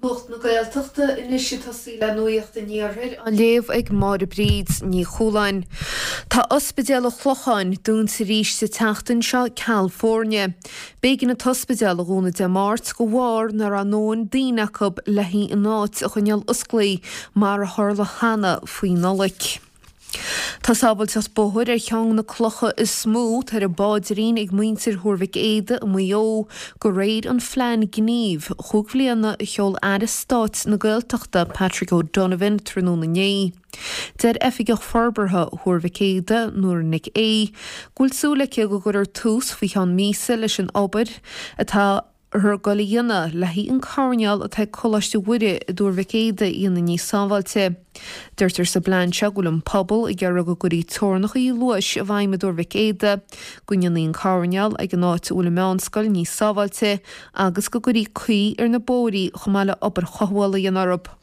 Nuacht na Gaeltachta anois ag tosaí le Nuacht an Iarthair á léamh ag Máire Bríd Ní Chualáin. Tá Ospidéal an Chlocháin dúnta arís sa tseachtain seo ceal foirne. B'éigean an t-ospidéal a dhúnadh Dé Máirt de bharr nach raibh a ndóthain daoine acu le an áit a choinneáil osclaí mar a tharla cheana faoi Nollaig. Tá sábháilteacht bóthair ar cheann de na clocha is mó atá ar an bpaidrín ag muintir Thuar Mhic Éadaigh i Maigh Eo, de réir an phlean gnímh chúig bhliana a sheol Aire Stáit na Gaeltachta Patrick O'Donovan tráthnóna inné. Deir Oifigeach Forbartha Thuar Mhic Éadaigh, Nóra Nic Aoidh, go bhfuil súil aici go gcuirfear tús faoi cheann míosa leis an obair atá ag goil a dhéanamh le haghaidh an coirnéal atá ag Coláiste Mhuire i dTuar Mhic Éadaigh a dhéanamh níos sábháilte. Deirtear sa bplean seo go bhfuil an pobal ag iarraidh go gcuirfí teorainneacha luais i bhfeidhm i dTuar Mhic Éadaigh, go ndéanfaí an coirnéal ag an áit a bhfuil an meánscoil níos sábháilte agus go gcuirfí caoi ar na bóithrí chomh maith le obair chothabhála a dhéanamh orthu.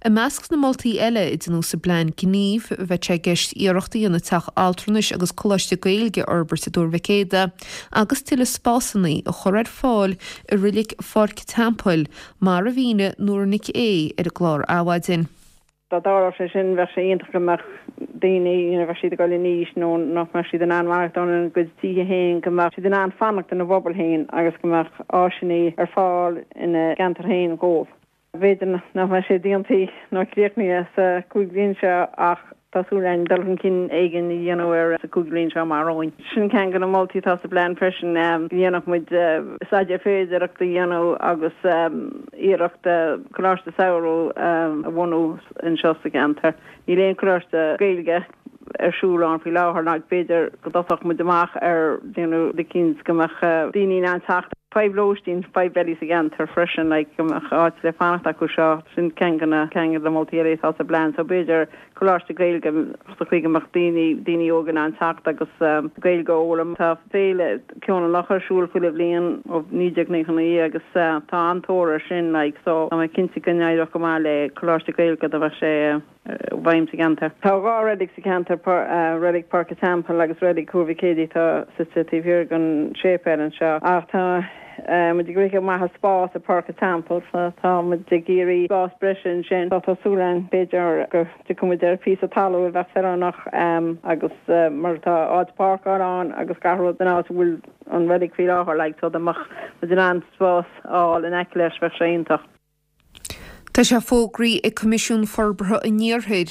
I measc na moltaí eile a deineadh sa bplean gnímh, bheadh sé i gceist iarracht a dhéanamh teach altranais agus coláiste Gaeilge a fhorbairt i dTuar Mhic Éadaigh agus tuilleadh spásanna a chur ar fáil i reilig Pháirc an Teampaill, mar a mhínigh Nóra Nic Aoidh ar an gclár Adhmhaidin. Dá dtarlódh sé sin, bheadh sé iontach go mbeadh daoine, you know, bheadh siad ag dul in aois nó nach mbeadh siad in ann maireachtáil ina gcuid tithe féin, go mbeadh siad in ann fanacht ina bpobal féin agus go mbeadh áiseanna ar fáil ina gceantar féin dhóibh. B'fhéidir nach mbeidh sé déanta nó críochnaithe sa chúig bhliain seo ach tá súil againn dul chun cinn éigin a dhéanamh air sa chúig bhliain seo amach romhainn. Sin ceann de na moltaí atá sa bplean freisin, go ndéanfadh muid staidéar féidearthachta a dhéanamh agus iarracht coláiste samhraidh a bhunú anseo sa gceantar. Níl aon choláiste Gaeilge ar siúl ann faoi láthair ná b'fhéidir go dtosódh muid amach ar déanamh rud eicínt go mbeadh daoine in ann teacht. Fadhb lóistín, fadhb eile sa gceantar freisin like go mbeadh áit le fanacht acu seo, sin ceann de na ceann de na moltaí eile atá sa bplean so b'fhéidir coláiste Gaeilge sa chaoi go mbeadh daoine, daoine óga in ann teacht agus Gaeilge a fhoghlaim. Tá féile Ceol an Locha ar siúl chuile bhliain ó 1999 agus tá an-tóir air sin like so tá mé cinnte go n-éireodh go maith le coláiste Gaeilge dá mbeadh sé i bhfeidhm sa gceantar. Tá 2 reilig sa cheantar, Reilig Páirc an Teampaill agus Reilig Thuar Mhic Éadaigh atá suite taobh thiar den séipéal anseo. Ach tá muid ag rith amach as spás i Páirc an Teampaill so tá muid ag iarraidh spás breise ansin. So tá súil againn b'fhéidir go dtiocfaidh muid ar phíosa talún a bheadh feiliúnach agus mar tá áit páirceála ann agus gach rud san áit a bhfuil an reilig faoi láthair like so dá mbeadh muid in ann spás a fháil in aice leis bheadh sé iontach. Tá sé fógraithe ag Coimisiún Forbartha an Iarthair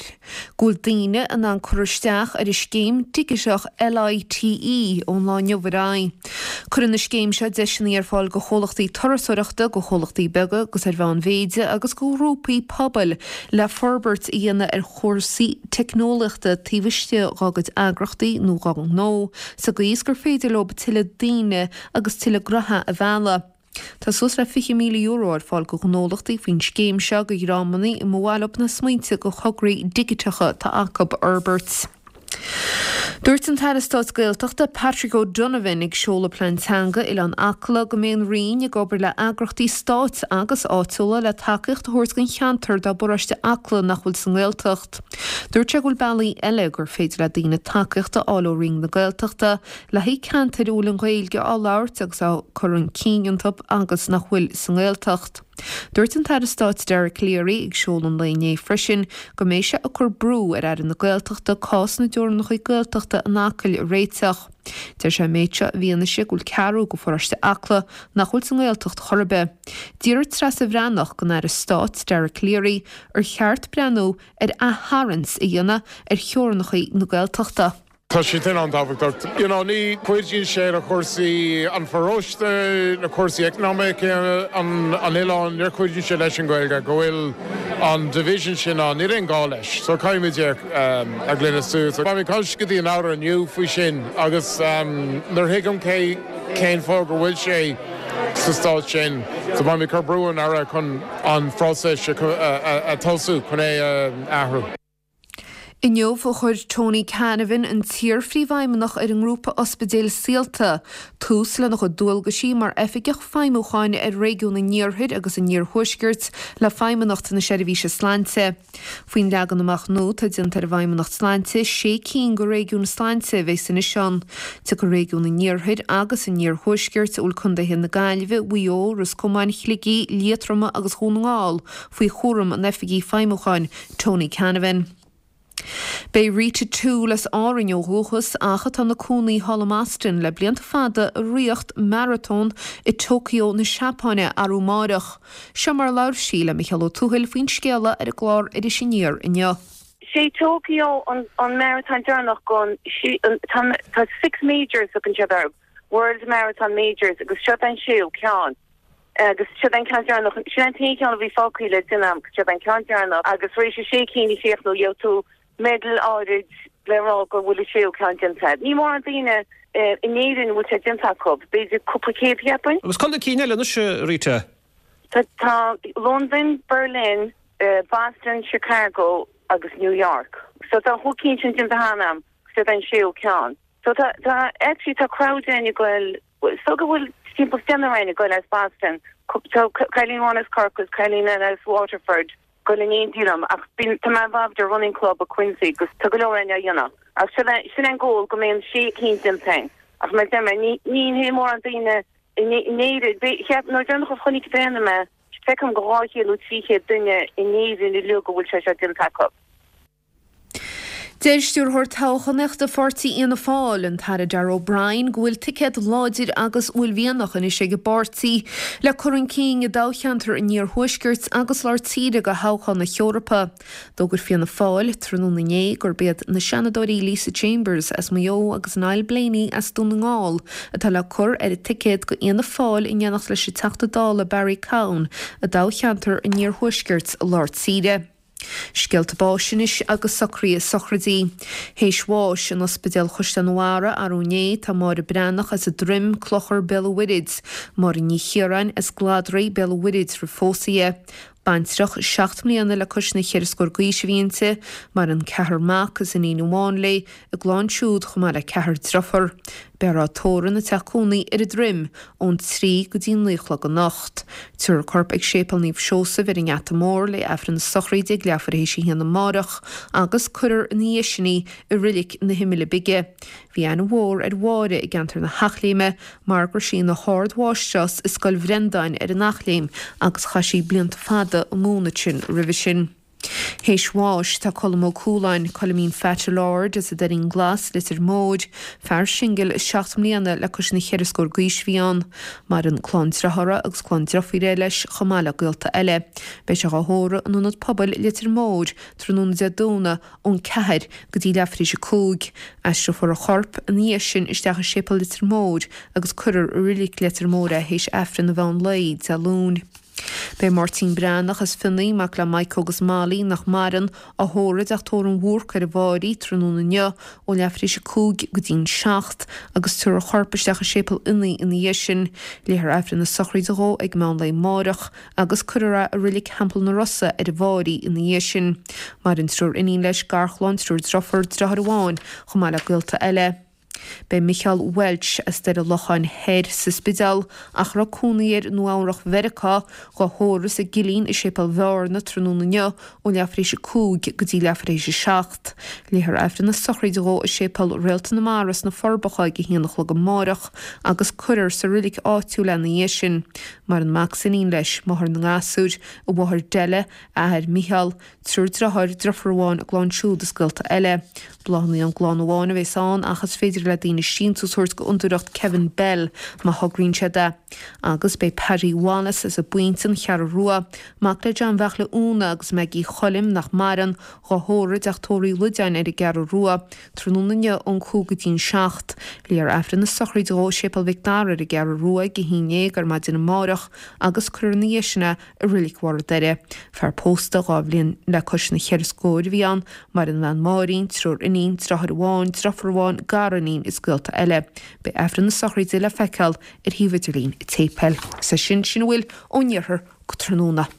go bhfuil daoine in ann cur isteach ar an scéim dhigiteach LITE ón lá inniu ar aghaidh. Cuireann an scéim seo deiseanna ar fáil do chomhlachtaí turasóireachta, do chomhlachtaí beaga agus ar mheánmhéide agus do ghrúpaí pobail le forbairt a dhéanamh ar chúrsaí teicneolaíochta taobh istigh dá gcuid eagrachtaí nó dá ngnó sa gcaoi is gur féidir leo tuilleadh daoine agus tuilleadh gnoithe a mhealladh. Tá suas le €20,000 ar fáil do ghnólachtaí faoin scéim seo do dhreamanna a mba mhaith leo na smaointe do thograí digiteacha atá acu a fhorbairt. Dúirt an tAire Stáit Gaeltachta Patrick O'Donovan ag seoladh Plean Teanga Oileán Acla go mbeidh an Roinn ag obair le eagrachtaí stáit agus áitiúla le tacaíocht a thabhairt don cheantar dá bparóiste Acla nach bhfuil sa nGaeltacht. Dúirt sé go bhfuil bealaí eile gur féidir le daoine tacaíocht a fháil ó Roinn na Gaeltachta le haghaidh ceantair a bhfuil an Ghaeilge á labhairt agus á cur chun cinn iontu agus nach bhfuil sa nGaeltacht. Dúirt an tAire Stáit Dara Calleary ag seoladh an lae inné freisin go mbeidh sé ag cur brú ar Aire na Gaeltachta cás na dteorainneacha Gaeltachta in Acaill a réiteach. Deir sé an méid seo i bhfianaise go bhfuil ceathrú de pharóiste Acla nach bhfuil sa nGaeltacht chor ar bith. D'fhiafraigh Treasa Bhreathnach den Aire Stáit Dara Calleary ar cheart breathnú ar aththarraingt a dhéanamh ar theorainneacha na Gaeltachta. Tá sé sin an-tábhachtach. You know, ní chuidíonn sé le cúrsaí an pharóiste, na cúrsaí eacnamaíocha an oileáin, níor chuidíonn sé leis an Ghaeilge go bhfuil an division sin ann. Níl aon gá leis. So caithfimid é a ghlanadh suas. Beidh mé ag caint go dtí an Aire inniu faoi sin agus nuair a thuigim cé cén fáth go bhfuil sé sa staid sin, so beidh mé ag cur brú ar an Aire chun an phróiseas a tosú chun é a athrú. Inniu a chuir Tony Canavan, an t-iar-phríomhfheidhmeannach ar an ngrúpa ospidéil Saolta, tús lena chuid dualgaisí mar Oifigeach Feidhmiúcháin ar Réigiún an Iarthair agus an Iarthuaiscirt le Feidhmeannacht na Seirbhíse Sláinte. Faoin leagan amach nua atá déanta ar an bhFeidhmeannacht Sláinte, sé cinn de réigiúin sláinte a bheas anois ann. Tiocfaidh Réigiún an Iarthair agus an Iarthuaiscirt, a bhfuil contaetha na Gaillimhe, Mhaigh Eo, Ros Comáin, Shligigh, Liatroma agus Dhún na nGall faoi chúram an Oifigigh Feidhmiúcháin, Tony Canavan. Beidh Rita Toole as Árainn ó dhúchas ach atá ina cónaí thall i mBoston le blianta fada ag ritheacht maratón i Tokyo na Seapáine arú amáireach. Seo mar a labhair sí le Micheál Ó Tuathail faoin scéala ar an gclár Iris Aniar inniu. Sé Tokyo an maratón deireanach gon tá six majors thugann siad orthu, World Marathon Majors agus seo an séú ceann. Agus siod é an ceann deireanach, sin an t-aon cheann a bhí fágtha le déanamh agam, siod é an ceann deireanach agus tar éis an sé cinn a chríochnú gheobhaidh tú medal áirid le rá go bhfuil an séú ceann déanta agat. Ní mórán daoine in Éirinn a bhfuil sé déanta acu, b'fhéidir cúpla céad cheapfainn. Agus cá na cinn eile anois, a Rita? Tá Londain, Berlin, Boston, Chicago agus New York. So tá an chúig cinn sin déanta cheana agam, siod é an séú ceann. So tá, tá, actually tá crowd againn ag goil, so go bhfuil timpeall deichniúr againn ag goil as Boston, tá cailín amháin as Corcaigh is cailín eile as Waterford ag goil in éindí liom ach bíonn, tá mé involved i running club i Quincy agus tá go leor againn á dhéanamh. Ach sin é, sin é an goal go mbeidh an sé cinn déanta againn. Ach mar a deir mé, ní, ní hé mórán daoine in Éirinn, cheap, nuair deireanach a chonaic féin mé, feicim go 200 nó 300 duine in Éirinn uilig go bhfuil sé seo déanta acu. Deir Stiúrthóir Toghchánaíochta Pháirtí Fhianna Fáil, an tAire Darragh O'Brien, go bhfuil ticéad láidir agus uaillmhianach anois ag an bpáirtí le cur chun cinn i dtoghcheantar an Iarthuaiscirt agus Lár Tíre do thoghchán na hEorpa. D'fhógair Fianna Fáil tráthnóna inné gurb iad na Seanadóirí Lisa Chambers as Maigh Eo agus Niall Blaney as Dún na nGall atá le cur ar an ticéad do Fhianna Fáil in éineacht leis an Teachta Dála Barry Cowen i dtoghcheantar an Iarthuaiscirt Lár Tíre. Scéalta báis anois agus socruithe sochraidí. Théis bháis in Ospidéal Chaisleán an Bharraigh arú inné tá Máire Breathnach as an Droim, Clochar, Béal an Mhuirthid, Máire Ní Chiaráin as Gladraigh, Béal an Mhuirthid roimh phósadh di. Baintreach seacht mbliana le cois na cheithre scór d'aois a bhí inti. Maireann ceathrar mac is iníon amháin léi, a gclann siúd chomh maith le ceathrar driofar. Beifear á tórramh ina teach cónaí ar an Droim ón 3 go dtí 9 a chlog anocht. Tabharfar a corp ag Séipéal Naomh Seosamh ar an nGeata Mór le Aifreann na sochraide ag leathuair théis a haon amárach agus cuirfear ina dhiaidh sin í i Reilig na hImile Bige. Bhí aithne mhór ar Mháire i gceantar na hEachléime mar go raibh sí ina hArd-Mháistreás i Scoil Bhrendáin ar an Eachléim agus chaith sí blianta fada ag múineadh ansin roimhe sin. Théis bháis tá Colm Ó Cualáin, Coilimín Pheaits Lord as an Doirín Glas, Leitir Móir, fear singil 7 mbliana le cois na cheithre scór d'aois a bhí ann. Maireann clann driothára agus clann driofúire leis chomh maith le gaolta eile. Beidh sé dhá thórramh in Ionad Pobail Leitir Móir tráthnóna Dé Domhnaigh ón 4 go dtí leathuair théis 5. Aistreofar a chorp ina dhiaidh sin isteach i Séipéal Leitir Móir agus cuirfear i Reilig Leitir Móir é théis Aifreann an mheán lae Dé Luain. Beidh Máirtín Breathnach as Fionnaí, mac le Mike agus Molly, nach maireann, á thórramh i dteach tórraimh an Bhúrc ar an bhFáirí tráthnóna inniu ó leathuair tar éis 5 go dtí'n 7 agus tabharfar a chorp isteach i Séipéal Fhionnaí ina dhiaidh sin. Léifear Aifreann na sochraide dhó ag meán lae amáireach agus cuirfear é i Reilig Theampall na Rosa ar an bhFáirí ina dhiaidh sin. Maireann triúr iníon leis, garchlann, triúr driofúr, driotháir amháin, chomh maith le gaolta eile. Beidh Micheál Walsh as Doire Locháin Thoir sa Spidéal, ach a raibh cónaí air i Nua Eabhrach Mheiriceá, dhá thórramh sa gCillín i Séipéal Bhearna tráthnóna inniu ó leathuair tar éis 5 go dtí leathuair tar éis 7. Léifear Aifreann na sochraide dhó i Séipéal Réalta na Mara sna Forbacha ag a haon a chlog amáireach agus cuirfear sa roilig áitiúil é ina dhiaidh sin. Maireann mac is iníon leis, máthair na ngasúr, a mháthair Della, a athair Micheál, Triúr driotháir, driofúr amháin, a gclann siúd is gaolta eile. Bláthanna ón gclann amháin a bheas ann ach is féidir le daoine síntiús a thabhairt go Fhondúireacht Kevin Bell má thograíonn siad é. Agus beidh Paddy Wallace as an bPointe, An Cheathrú Rua, mac le John Bheartla Úna agus Maggie Choilm, nach maireann, dhá thórramh i dteach tórraimh Uí Loideáin ar an gCeathrú Rua, tráthnóna inniu ón 5 go dtí'n 7. Léifear Aifreann na sochraide dhó i Séipéal Mhic Dara ar an gCeathrú Rua ag a 11 ar maidin amárach agus cuirfear ina dhiaidh sin é i Reilig Bharr an Doire. Fear pósta 2 bhliain le cois na cheithre scóir a bhí ann, maireann a bhean Máirín, triúr iníon, driotháir amháin, driofúr amháin, gariníon is gaolta eile. Beidh Aifreann na sochraide le feiceáil ar shuíomh idirlín an tséipéil. Is é sin sin a bhfuil ón iarthar go tráthnóna.